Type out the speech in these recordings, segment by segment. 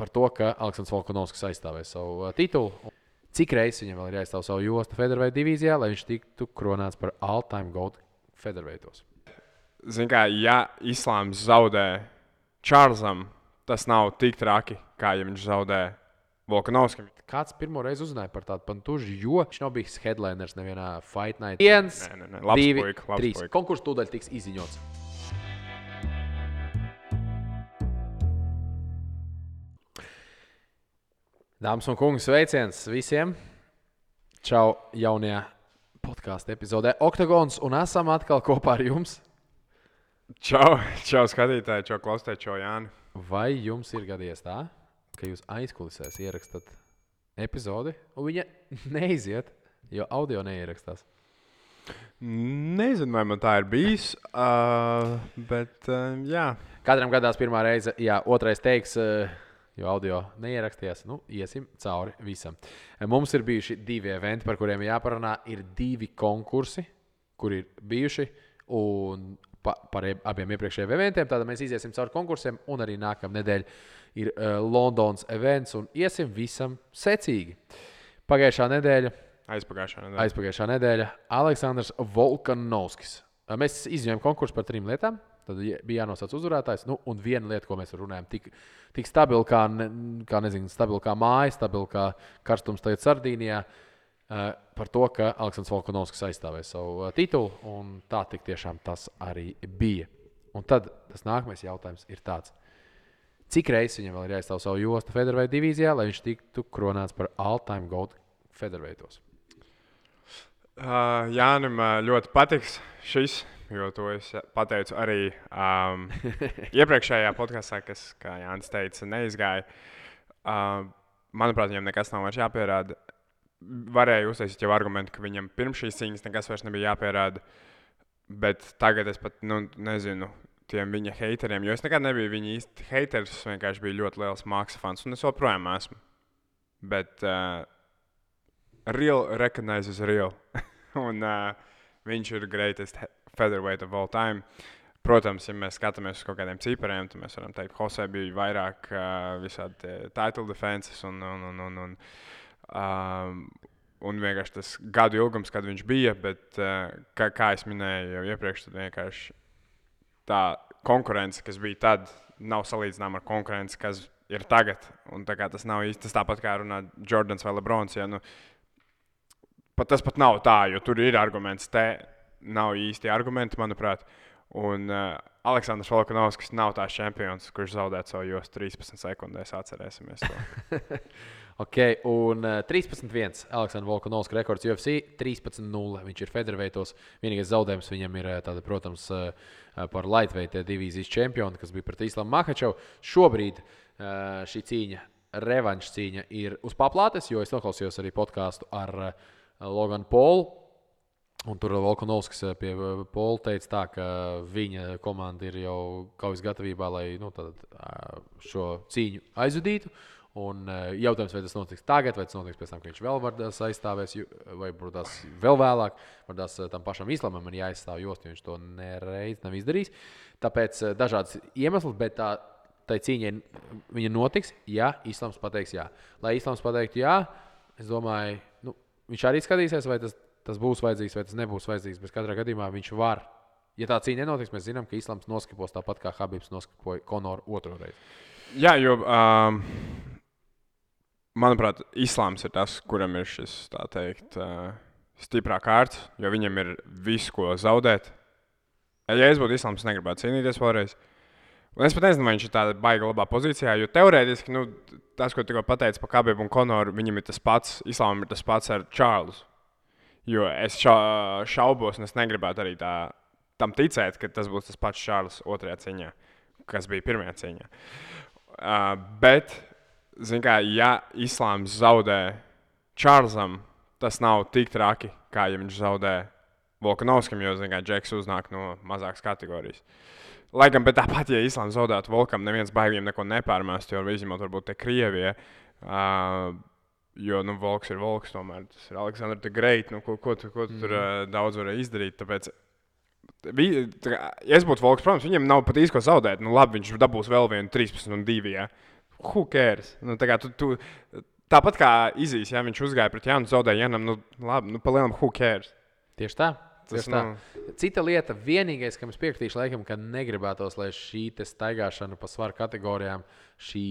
par to, ka Aleksandrs Volkanovskis aizstāvēs savu titulu. Cik reizes viņam vēl ir jāizstāv savu jostu featherweight divīzijā, lai viņš tiktu kronēts par all-time GOAT featherweightos? Zini kā, ja Islāms zaudē Čārlzam, tas nav tik traki, kā ja viņš zaudē Volkanovskim. Kāds pirmo reizi uzzināja par tādu pantužu, jo viņš nav bijis headliners nevienā Fight Night. 1, 2, 3. Konkurss tūdaļ tiks izziņots. Dāmas un kungi, sveiciens visiem! Čau jaunajā podkāstu epizodē Oktagons, un esam atkal kopā ar jums. Čau skatītāji, čau klausītāji, čau Jāni. Vai jums ir gadījies tā, ka jūs aizkulisēs ierakstat epizodi, un viņa neiziet, jo audio neierakstās? Nezinu, vai man tā ir bijis, bet jā. Katram gadās pirmā reize, jā, otrais teiks, jo audio neierakstījās, iesim cauri visam. Mums ir bijuši 2 eventi, par kuriem jāparunā. Ir 2 konkursi, kur ir bijuši, un par abiem iepriekšējiem eventiem. Tātad mēs iziesim cauri konkursiem, un arī nākamā nedēļa ir Londons events, un iesim visam secīgi. Aizpagājušā nedēļa Aleksandrs Volkanovskis. Mēs izņēmām konkursu par 3 lietām. Tad bija jānosauc uzvarētājs. Un viena lieta, ko mēs runājam, tik stabila kā māja, stabila kā karstums tagad Sardīnijā, par to, ka Aleksandrs Volkanovskis aizstāvēs savu titulu, un tā tik tiešām tas arī bija. Un tad tas nākamais jautājums ir tāds. Cik reizes viņam vēl ir jāizstāv savu jostu featherweight divīzijā, lai viņš tiktu kronēts par all-time GOAT featherweightos? Jānim ļoti patiks šis. Jo to es pateicu arī iepriekšējā podkāstā, kas, kā Jānis teica, neizgāja. Manuprāt, viņam nekas nav vairs jāpierāda. Varēja uztaisīt jau argumentu, ka viņam pirms šīs cīņas nekas vairs nebija jāpierāda. Bet tagad es pat nezinu tiem viņa hateriem, jo es nekad nebiju viņa īsti haters. Es vienkārši biju ļoti liels Maksa fans, un es joprojām esmu. Bet real recognizes real. Un viņš ir greatest featherweight of all time. Protams, ja mēs skatāmies uz kaut kādiem cipariem, tad mēs varam teikt, ka Jose bija vairāk visādi title defenses un vienkārši tas gadu ilgums, kad viņš bija, bet kā es minēju jau iepriekš, tad vienkārši tā konkurence, kas bija tad, nav salīdzināma ar konkurenci, kas ir tagad. Un tā kā tas nav īsti, tas tāpat kā runā Jordans vai Lebrons, ja, tas pat nav tā, jo tur ir arguments nav īsti argumenti, manuprāt. Un Aleksandrs Volkanovskis nav tās čempions, kurš zaudētu savu jostu 13 sekundēs. Atcerēsimies to. Ok, un 13-1 Aleksandrs Volkanovskis rekords UFC, 13-0. Viņš ir featherweightos. Vienīgais zaudējums viņam ir, protams, par lightweight divīzijas čempionu, kas bija pret Islamu Makhačevu. Šobrīd šī cīņa, revanša cīņa, ir uz paplātes, jo es noklausījos arī podkāstu ar Logan Paulu. Un tur Volkanovskis pie Paula teica tā, ka viņa komanda ir jau kaujas gatavībā, lai šo cīņu aizvadītu. Un jautājums, vai tas notiks tagad, vai tas notiks pēc tam, ka viņš vēl vardās aizstāvēs, vai būs vēl vēlāk. Vardās tam pašam Islamam ir jāaizstāv jostu, jo viņš to nereiz nav izdarījis. Tāpēc dažādas iemesls, bet tai cīņai viņa notiks, ja Islams pateiks jā. Lai Islams pateiktu jā, es domāju, viņš arī skatīsies, vai tas būs vajadzīgs, vai tas nebūs vajadzīgs. Bet katrā gadījumā viņš var. Ja tā cīņa nenotiks, mēs zinām, ka Islams noskipos tāpat kā Habibs noskipoja Konoru otro reizi. Jā, jo, manuprāt, Islams ir tas, kuram ir šis, tā teikt, stiprā kārts, jo viņam ir visu, ko zaudēt. Ja es būtu Islams, negribētu cīnīties vēlreiz. Un es pat nezinu, vai viņš ir tādā baigā labā pozīcijā, jo teorētiski, tas, ko tikko pateicu par Habibu un Konoru, viņam ir tas pats, Islamam ir tas pats ar Čārlzu. Jo es šaubos, un es negribētu arī tam ticēt, ka tas būs tas pats Čārls otrajā cīņā, kas bija pirmajā cīņā. Bet, zin kā, ja Islāms zaudē Čārlzam, tas nav tik traki, kā ja viņš zaudē Volkanovskim, jo, zin kā, Džeks uznāk no mazākas kategorijas. Lai gan, bet tāpat, ja Islāms zaudētu Volkam, neviens baigiem neko nepārmēst, jo izņemot varbūt te Krievijai, jo, Volks ir Volks tomēr, tas ir Aleksandrs the Great, ko tu tur daudz varēja izdarīt, tāpēc, ja es būtu Volks, protams, viņam nav pat īsti ko zaudēt, labi, viņš dabūs vēl vienu 13-2, ja, who cares? Nu, tā kā tāpat kā Izīs, ja viņš uzgāja pret Jānu, zaudēja Janam, nu labi, palielam who cares? Tieši tā. Tas, Cita lieta, vienīgais, kam es piekritīšu, laikam, ka negribētos, lai šī staigāšana pa svaru kategorijām, šī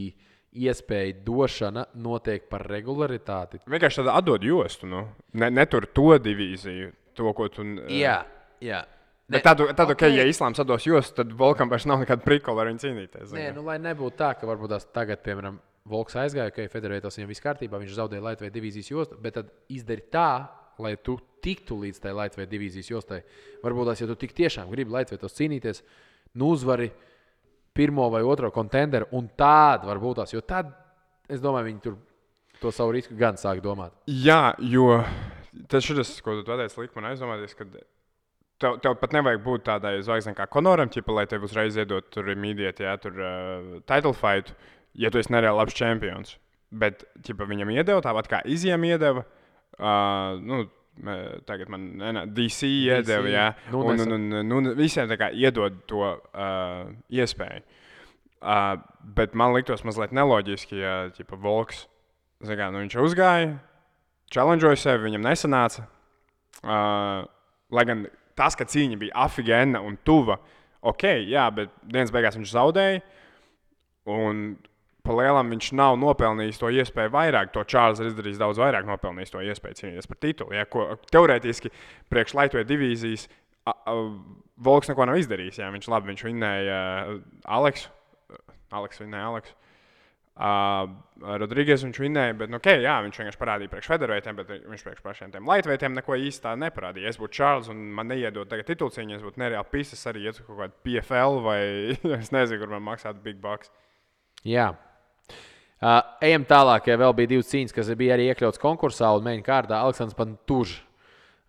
iespēja došana notiek par regularitāti. Vienkārši tāda atdod jostu, nu. Netur to divīziju, to, ko tu... Jā. Bet tad, okay, ja Islāms atdos jostu, tad Volkam vairs nav nekāda prikola ar viņu cīnīties. Nē, nu, lai nebūtu tā, ka varbūt tās tagad, piemēram, Volks aizgāja, ka Federētos viņam viss kārtībā, viņš zaudēja Lightweight divīzijas jostu, bet tad izdari tā, lai tu tiktu līdz tai Lightweight divīzijas jostai. Varbūt tās, ja tu tik tiešām gribi Lightweightos cīnīties, nu uzvari pirmo vai otro kontenderu, un tādu varbūt tās, jo tad, es domāju, viņi tur to savu risku gan sāk domāt. Jā, jo tas šis, ko tu pateici, lika man aizdomāties, ka tev pat nevajag būt tādai zvaigznei kā Konoram, lai tev uzreiz iedot tur immediate, jā, tur title fight, ja tu esi nereāli labs čempions. Bet viņam iedeva tāpat kā Izijam iedeva, tagad man DC iedeva, jā, un visiem tā kā iedod to iespēju. Bet man liktos mazliet neloģiski, ja Volks, viņš uzgāja, challengeoja sevi, viņam nesanāca, lai gan tas, ka cīņa bija afigēna un tuva, ok, jā, bet dienas beigās viņš zaudēja, un pa lielam viņš nav nopelnījis to iespēju vairāk. To Čārls ir izdarījis daudz vairāk, nopelnījis to iespēju cīnīties par titulu. Ja, ko teorētiski priekš Lightweight divīzijas Volks neko nav izdarījis. Ja, viņš vinnēja Aleksu vinnēja Aleksu. Rodrīgas viņš vinnēja, bet jā, viņš vienkārši parādīja priekš Federveitiem, bet viņš priekš pašiem tiem Lightweightiem neko īsti tā neparādīja. Es būtu Čārls un man neiedot tagad titulcīņu, es būtu nereāli pisas arī ietu kaut kādu PFL vai es nezinu, kur man maksātu big bucks. Jā. Ejam tālāk, ja vēl bija divas cīņas, kas bija arī iekļauts konkursā un main kārdā. Aleksandrs Pantužs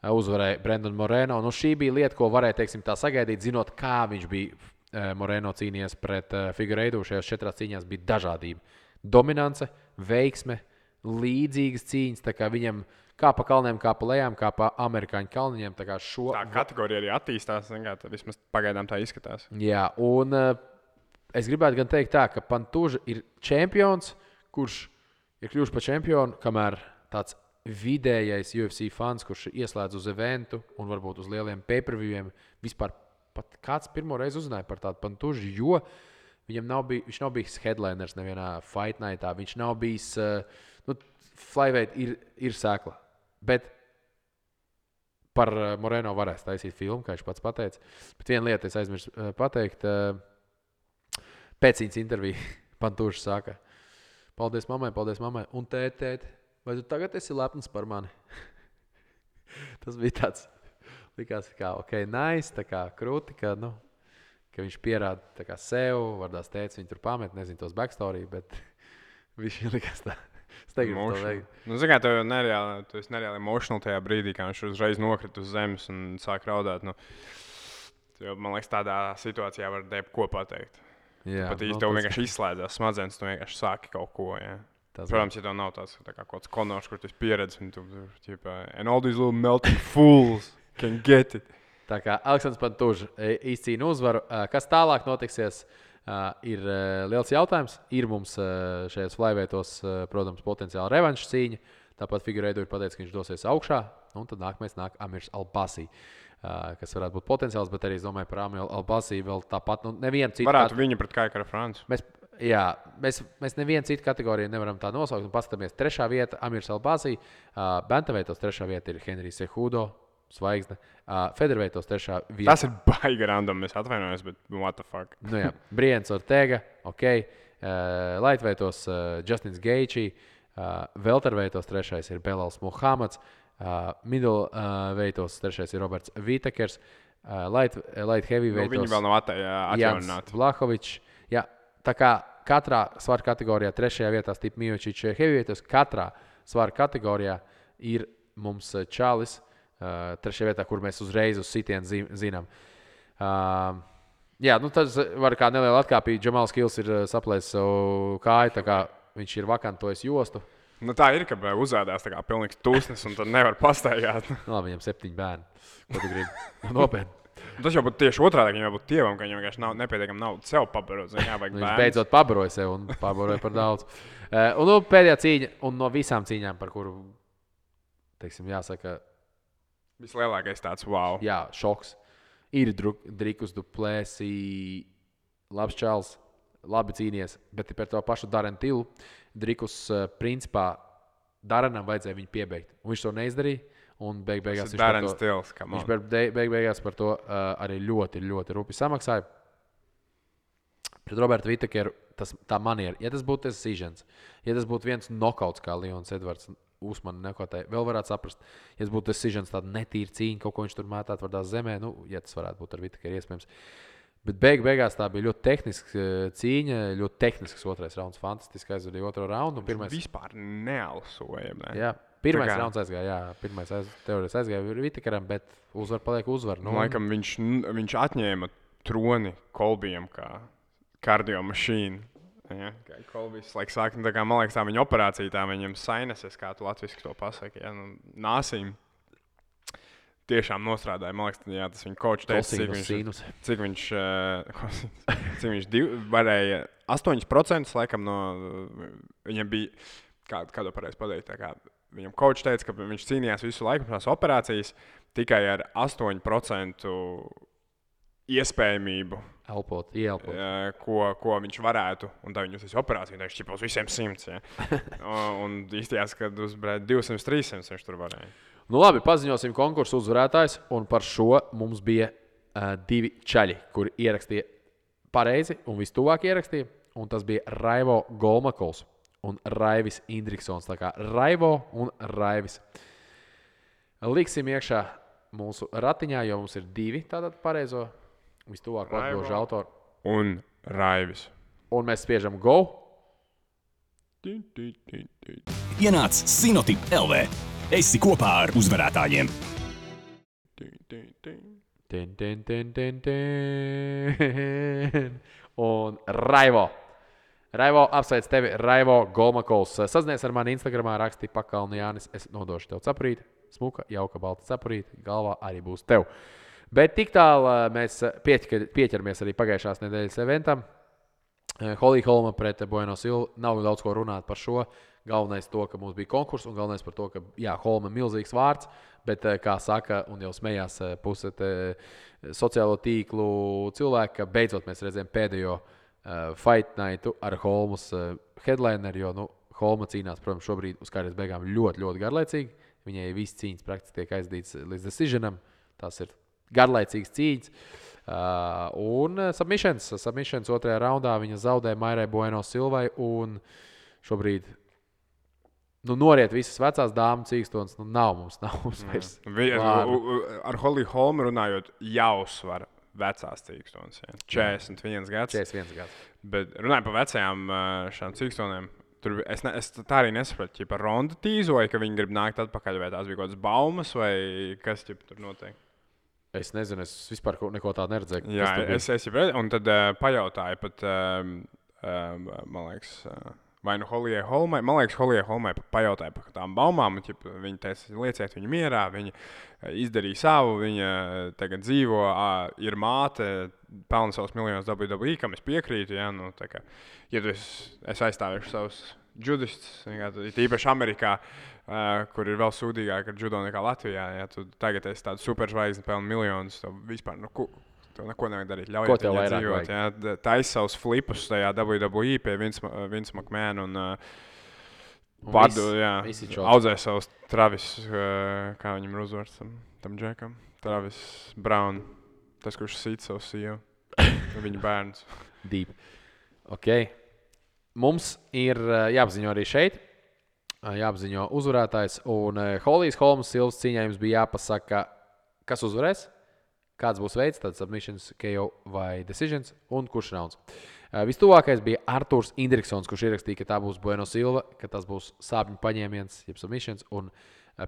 uzvarēja Brendonu Moreno. Nu, šī bija lieta, ko varēja, teiksim, tā sagaidīt, zinot, kā viņš bija Moreno cīnījies pret Figueiredo. Šajās 4 cīņās bija dažādība. Dominance, veiksme, līdzīgas cīņas, tā kā viņam kā pa kalniem, kā pa lejām, kā pa amerikāņu kalniņiem. Tā kategorija arī attīstās, vismaz pagaidām tā izskatās. Jā, un es gribētu gan teikt tā, ka Pantuža ir čempions, kurš ir kļuvuši par čempionu, kamēr tāds vidējais UFC fans, kurš ieslēdz uz eventu un varbūt uz lieliem pay-per-viewiem, vispār pat kāds pirmo reizi uzzināja par tādu Pantužu, jo viņš nav bijis headliners nevienā fight nightā, viņš nav bijis, flyweight ir sēkla, bet par Moreno varēs taisīt filmu, kā viņš pats pateica, bet viena lieta es aizmirsu pateikt, pēc viņas interviju Pantužs saka, paldies mammai, un tēt, vai tu tagad esi lepns par mani? Tas bija tāds, likās kā, ok, nice, tā kā krūti, ka viņš pierāda tā kā sev, vardās tēts, viņi tur pamet, nezinu tos backstory, bet viņš likās tā, es negribu to veikt. Tu esi nereāli emotional tajā brīdī, kā viņš uzreiz nokrita uz zemes un sāk raudāt. Man liekas, tādā situācijā var ko pateikt. Jā, pat īsti tev vienkārši izslēdzās smadzenes, tu vienkārši sāki kaut ko, jā. Protams, ja tev nav tāds kā kaut kāds konors, kur tu esi pieredzis, un tu, and all these little melting fools can get it. Tā kā Aleksandrs Pantužs izcīna uzvaru. Kas tālāk notiksies, ir liels jautājums. Ir mums šajos flyweightos, protams, potenciāli revanša cīņa. Tāpat Figueiredo ir pateicis, ka viņš dosies augšā. Un tad nākamais nāk Amirs Albasī, kas varētu būt potenciāls, bet arī es domāju par Amiru Albasī vēl tāpat. Nevienu citu varētu viņu pret Kaikara Francu. Mēs nevienu citu kategoriju nevaram tā nosaukt. Paskatāmies, 3. vieta Amirs Albasī. Bantamveitos 3. vieta ir Henrijs Cejudo. Zvaigzne. Federveitos 3. vieta. Tas ir baigi random, es atvainojos, bet what the fuck. Brians Ortega, ok. Lightweightos Justins Gaethje. Welterveitos 3. ir Belals Muhammads. Middleweightos 3. ir Roberts Vitekers. Light heavyweightos viņi vēl nav atjaunināti. Vlahovičs. Jā, tā kā katrā svaru kategorijā 3. vietā Stipe Miocic. Heavyweightos katrā svaru kategorijā ir mums Čalis. 3. vietā, kur mēs uzreiz uz sitienu zinām. Jā, tas var kā neliela atkāpīja. Džamals Kils ir saplēsis savu kāju, tā kā viņš ir vakantojis jostu. Tā ir, ka uzādās tā kā pilnīgs tūsnis un tad nevar pastaigāt. Labi, viņam 7 bērni. Ko tu gribi? Nopietni. Tas jau būtu tieši otrādi, viņam būtu tievam, ka viņam vienkārši nav nepietiekami naudas sev pabarot. Viņš beidzot pabaroja sev un pabaroja par daudz. Un pēdējā cīņa, un no visām cīņām, par kuru, teiksim, jāsaka, vislielākais tāds wow. Jā, šoks. Ir Drikus Duplessis, labs čals, labi cīnies, bet par to pašu Darenu Tilu. Drikus, principā, Darenam vajadzēja viņu piebeigt. Un viņš to neizdarīja. Un beigās viņš beigās par to arī ļoti, ļoti rupi samaksāja. Pret Robertu Vitakeru tā maniera, ja tas būtu decisions, ja tas būtu viens nokauts, kā Leons Edvards Usmanu nekotēja, vēl varētu saprast. Ja tas būtu decisions, tāda netīra cīņa, kaut ko viņš tur mētāt vārdā zemē, ja tas varētu būt ar Vitakeru iespējams. Bet beigās tā bija ļoti tehniska cīņa, ļoti tehnisks otrais rauns, fantastiski aizvadīja otro raundu. Viņš vispār nealsoja. Ne? Jā. Pirmais rauns aizgāja, teorētiski aizgāja Vitakaram, bet uzvar paliek uzvar. Nu, laikam viņš atņēma troni Kolbijam kā kardiomašīnu. Ja? Kolbijs sāk, tā kā, man liekas, tā viņa operācija, tā viņam sinuses, kā tu latviski to pasaki, ja? Nāsīm. Tiešām nostrādāja, man liekas, jā, tas viņa coach teica, cik viņš varēja 8% laikam no, viņam bija, kādu pareizi pateikt, tā kā, viņam coach teica, ka viņš cīnījās visu laiku tās operācijas tikai ar 8% iespējamību. Ieelpot. Ko viņš varētu, un tā viņš uz operāciju, viņš ķipa uz visiem 100, ja. Un īstījās, kad uz 200-300 viņš tur varēja. Nu labi, paziņosim konkursu uzvarētājs, un par šo mums bija 2 čaļi, kuri ierakstīja pareizi un vistuvāk ierakstīja, un tas bija Raivo Golmakols un Raivis Indriksons. Tā kā Raivo un Raivis. Liksim iekšā mūsu ratiņā, jo mums ir 2 tātad pareizo vistuvāk atbilžu autoru. Un Raivis. Un mēs spiežam go. Ienāc Sinotip LV. Esi kopā ar uzvarētājiem. Un Raivo. Raivo, apsveic tevi, Raivo Golmakols. Sazinies ar mani Instagramā, raksti Pakalni Jānis. Es nodošu tev cepurīti. Smuka, jauka, balta cepurīti. Galvā arī būs tev. Bet tik tālu mēs pieķeramies arī pagājušās nedēļas eventam. Holly Holma pret Bueno Silvu. Nav daudz ko runāt par šo. Galvenais to, ka mums bija konkurss, un galvenais par to, ka, jā, Holma ir milzīgs vārds, bet, kā saka, un jau smējās puse sociālo tīklu cilvēku, ka beidzot mēs redzējām pēdējo fight nightu ar Holmas headlineru, jo, Holma cīnās, protams, šobrīd uz kārtas beigām ļoti, ļoti garlaicīgi. Viņai viss cīņas praktiski tiek aizdīts līdz decisionam. Tās ir garlaicīgas cīņas. Un submissions otrajā raundā viņa zaudēja Mairai Bueno Silvai, un šobrīd noriet visas vecās dāmas cīkstonas, nav mums vairs. Ar Holly Holmu runājot, jāuzsver vecās cīkstonas. 41 gads. 41 gads. Bet runājot par vecajām šām cīkstonēm, es tā arī nesapratu, ja par Rondu tīzoju, ka viņi grib nākt atpakaļ, vai tās bija kaut kādas baumas, vai kas tur notiek? Es nezinu, es vispār neko tādu neredzēju. Jā, es jau un tad pajautāju pat, man liekas, vai Holijai Holmai, man liekas, Holijai Holmai pajautāja par tām baumām, un viņa teica, lieciet viņu mierā, viņa izdarīja savu, viņa tagad dzīvo, ir māte, pelna savus miljonus WWE, kam es piekrītu, ja, tā kā, ja es aizstāvēšu savus judistus, īpaši Amerikā, kur ir vēl sūdīgāk ar judo nekā Latvijā, ja tu tagad esi tāds superzvaigzne, pelna miljonus, tev vispār, tev neko nevajag darīt. Ļaujiet viņai dzīvot. Ja? Taisa savus flipus tajā WWE pie Vince McMahon un audzē savus Travis, kā viņam ir uzvārds tam džekam. Travis Brown, tas, kurš sīt savu sievu, viņa bērns. Deep. Ok. Mums ir jāapziņo arī šeit. Jāapziņo uzvarētājs. Un Holijas Holmas Silvas cīņā jums bija jāpasaka, kas uzvarēs. Kāds būs veids, tad submissions, KO vai decisions, un kurš rauns. Vistuvākais bija Arturs Indriksons, kurš ierakstīja, ka tā būs Bueno Silva, ka tas būs sāpņu paņēmiens, jeb submissions, un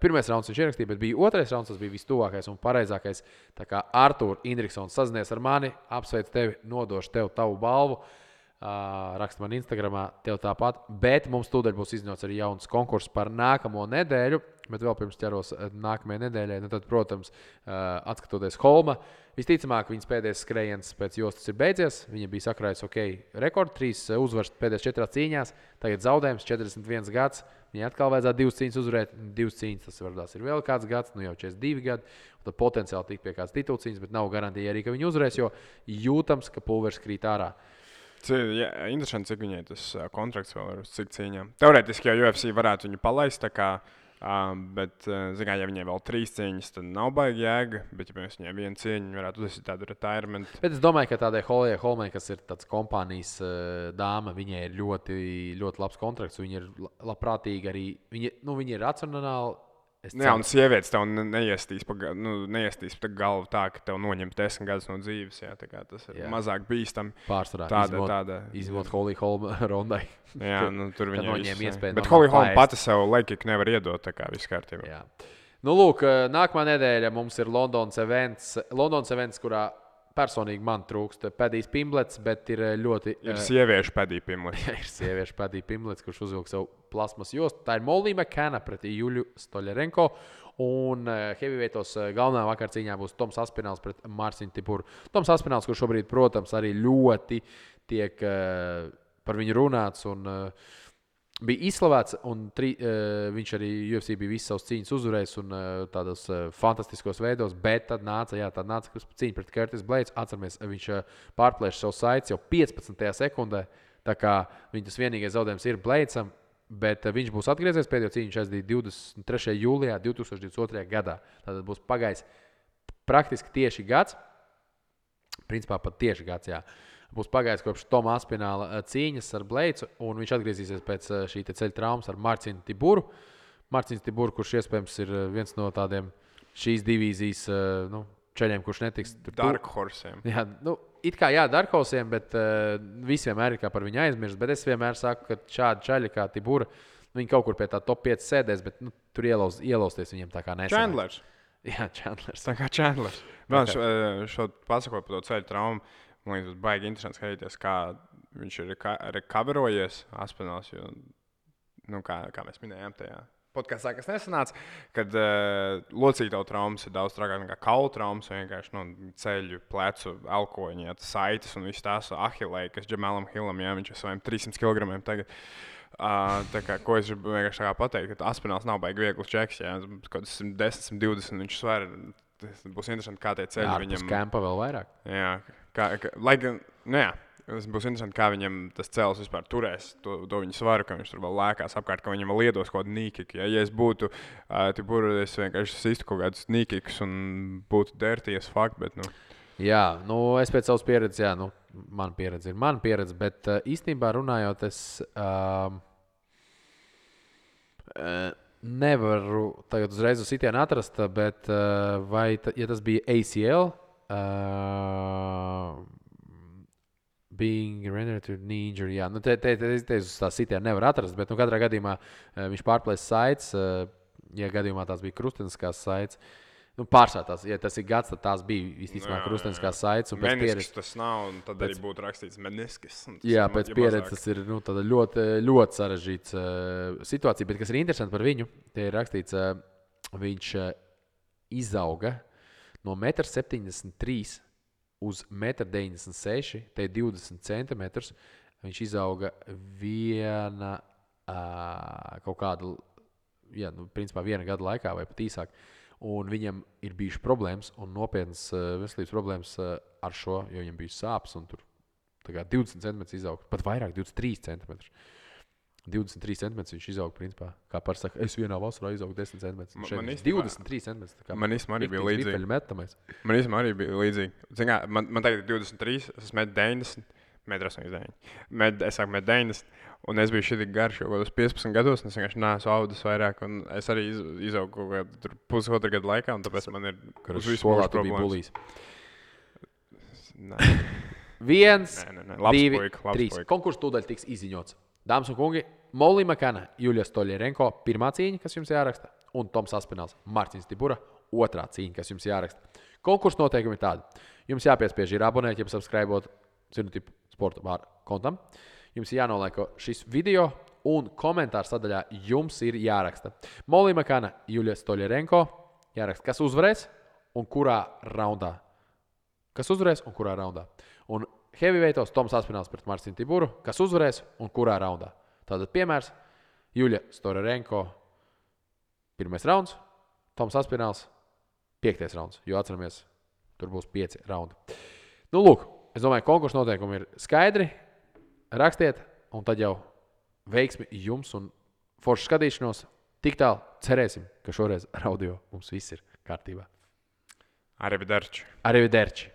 pirmais rauns viņš ierakstīja, bet bija otrais rauns, tas bija vistuvākais un pareizākais. Tā kā Artur Indriksons sazinies ar mani, apsveic tevi, nodošu tev tavu balvu. Raksta man Instagramā, tev tāpat. Bet mums tūdaļ būs izņots arī jauns konkurss par nākamo nedēļu. Bet vēl pirms ķeros nākamajai nedēļai, nu tad, protams, atskatoties Holma, visticamāk, viņas pēdējais skrējiens pēc jostas ir beidzies. Viņa bija sakrājusi rekordu, 3 uzvaras pēdējās 4 cīņās, tagad zaudējums 41 gads. Viņai atkal vajadzētu 2 cīņas uzvarēt, 2 cīņas tas varbūt ir vēl kāds gads, nu jau 42 gadi. Tad potenciāli tikt pie kādas titulcīņas, bet nav garantija arī, ka viņi uzvarēs, jo jūtams, ka pulveris krīt ārā. Jā, interesanti, cik viņai tas kontrakts vēl ir uz cik cīņām. Teorētiski jau UFC varētu viņu palaist, bet, ja viņai vēl 3 cīņas, tad nav baigi jēga. Bet, ja viņai 1 cīņa, varētu uzsākt tādu retirement. Bet es domāju, ka tādai Holmai, kas ir tāds kompānijas dāma, viņai ir ļoti, ļoti labs kontrakts. Viņa ir labprātīga arī. Viņa ir racionāli. Jā, un sievietes tev neiestīs pa galvu tā, ka tev noņem 10 gadus no dzīves. Jā, tas ir mazāk bīstami. Pārsvarā izmot Holly Holma rondai. Jā, tur viņa noņem iespēju. Bet Holly Holma pati sev laikīgi nevar iedot, tā kā viss kārtībā. Jā. Nu, lūk, nākamā nedēļa mums ir Londonas events, kurā personīgi man trūkst Padijs Pimblets, bet ir ļoti... Ir sieviešu Padija Pimblets. Jā, ir sieviešu Padija Pimblets, kurš uzvilk savu plasmas jostu. Tā ir Molly McCanna pret Juļu Stoļerenko. Un heavyweightos galvenā vakarcīņā būs Toms Aspināls pret Marcinu Tiburu. Toms Aspināls, kurš šobrīd, protams, arī ļoti tiek par viņu runāts un bija izslavēts. Un viņš arī UFC bija visas savas cīņas uzvarējis un tādos fantastiskos veidos. Bet tad nāca cīņa pret Curtis Blades. Atceramies, viņš pārplēša savu saites jau 15. sekundē. Tā kā viņas vienīgais zaudējums ir Bladesam. Bet viņš būs atgriezies pēdējo cīņu. Viņš aizdīja 23. jūlijā 2022. gadā. Tātad būs pagājis praktiski tieši gads. Principā pat tieši gads, jā. Būs pagājis kopš Toma Aspināla cīņas ar Bladesu, un viņš atgriezīsies pēc šī ceļa traumas ar Marcinu Tiburu. Marcins Tiburu, kurš iespējams ir viens no tādiem šīs divīzijas ceļiem, kurš netiks tur. Dark Horsiem. Jā, it kā Dark Horsiem, bet visi vienmēr ir kā par viņu aizmirst. Bet es vienmēr saku, ka šādi ceļi kā Tibura, viņi kaut kur pie tā top 5 sēdēs, bet tur ielausties viņiem tā kā nesanāk. Chandlers. Jā, Chandlers. Tā kā Chandlers. Vēl šo pasakot par to ceļu traumu. Man liekas, tas baigi interesanti skatīties, kā viņš ir recoverojies Aspināls. Kā mēs minējām tajā podkastā, kas nesanāca, kad locītavu traumas ir daudz trakāk nekā kaulu traumas. Vienkārši ceļu, plecu, elkoņi, saites un viss tās ahilei, kas Džemalam Hillam, viņš ir saviem 300 kg tagad. Ko es gribu vienkārši pateikt, ka Aspināls nav baigi viegls čeks. Kaut kas 110, 120 viņš sver. Tas būs interesanti, kā tie ceļi viņam... Jā, kempa vēl vairāk. Jā, tas būs interesanti, kā viņam tas cēls vispār turēs to viņa svaru, ka viņš tur vēl lēkās apkārt, ka viņam vēl iedos kaut kādu nīkiku. Ja es būtu Tiburu, es vienkārši sistu kaut kādus nīkikus un būtu dirties fakt, bet Jā, es pēc savas pieredzes, mana pieredze ir mana pieredze, bet īstenībā runājot, es nevaru tagad uzreiz uz sitienu atrast, bet ja tas bija ACL, being rendered to knee injury, jā, te uz tā sitienu nevar atrast, bet katrā gadījumā viņš pārplēs saites, ja gadījumā tās bija krusteniskās saites. Pārsvarā tās, ja tas ir gads, tad tās bija visticamāk krusteniskās saites. Meniskis tas nav, un tad arī būtu rakstīts meniskis. Jā, pēc pieredzes tas ir ļoti, ļoti sarežģīts situācija, bet kas ir interesanti par viņu, te ir rakstīts, viņš izauga no 1,73 m uz 1,96 m, te ir 20 cm. Viņš izauga kaut kādu, principā viena gada laikā vai pat īsāk. Un viņam ir bijušas problēmas un nopietnas veselības problēmas ar šo, jo viņam bija sāpes un tur 20 cm izauga, pat vairāk 23 cm. 23 cm viņš izauga, principā, kā par saka, es vienā vasarā izaugu 10 cm. 23 cm. Man īstenībā arī bija līdzīgi. Man tagad ir 23, es esmu 1,90 m, 1,89 m. Es sāku 1,90 m. Un es biju šitīgi garš jau kādos 15 gados, un es vienkārši neesmu audis vairāk. Un es arī izaugu kaut kādu pusotru gadu laikā, un tāpēc man ir uz visu mūžu problēmas. Nē. 1, Labs 2, puika, 3. Konkurss tūdaļ tiks izziņots. Dāmas un kungi, Molly McCanna, Juļa Stoļerenko, pirmā cīņa, kas jums jāraksta, un Toms Aspināls, Marcins Tibura, otrā cīņa, kas jums jāraksta. Konkurss noteikumi ir tādi. Jums jāpiespiež ir abonēt, ja subscribot sporta bāra kontam. Jums ir jānoliek šis video, un komentāru sadaļā jums ir jāraksta. Molija Makana, Juļa Stoļerenko, jāraksta, kas uzvarēs un kurā raundā. Kas uzvarēs un kurā raundā. Un heavyweightos Toms Aspināls pret Marcinu Tiburu, kas uzvarēs un kurā raundā. Tātad piemērs Juļa Stoļerenko, 1. rauns, Toms Aspināls, 5. rauns, jo atceramies, tur būs 5 raundi. Nu, lūk, es domāju, konkursu noteikumi ir skaidri. Rakstiet, un tad jau veiksmi jums un foršu skatīšanos. Tik tālu cerēsim, ka šoreiz ar audio mums viss ir kārtībā. Arrivederci. Arrivederci.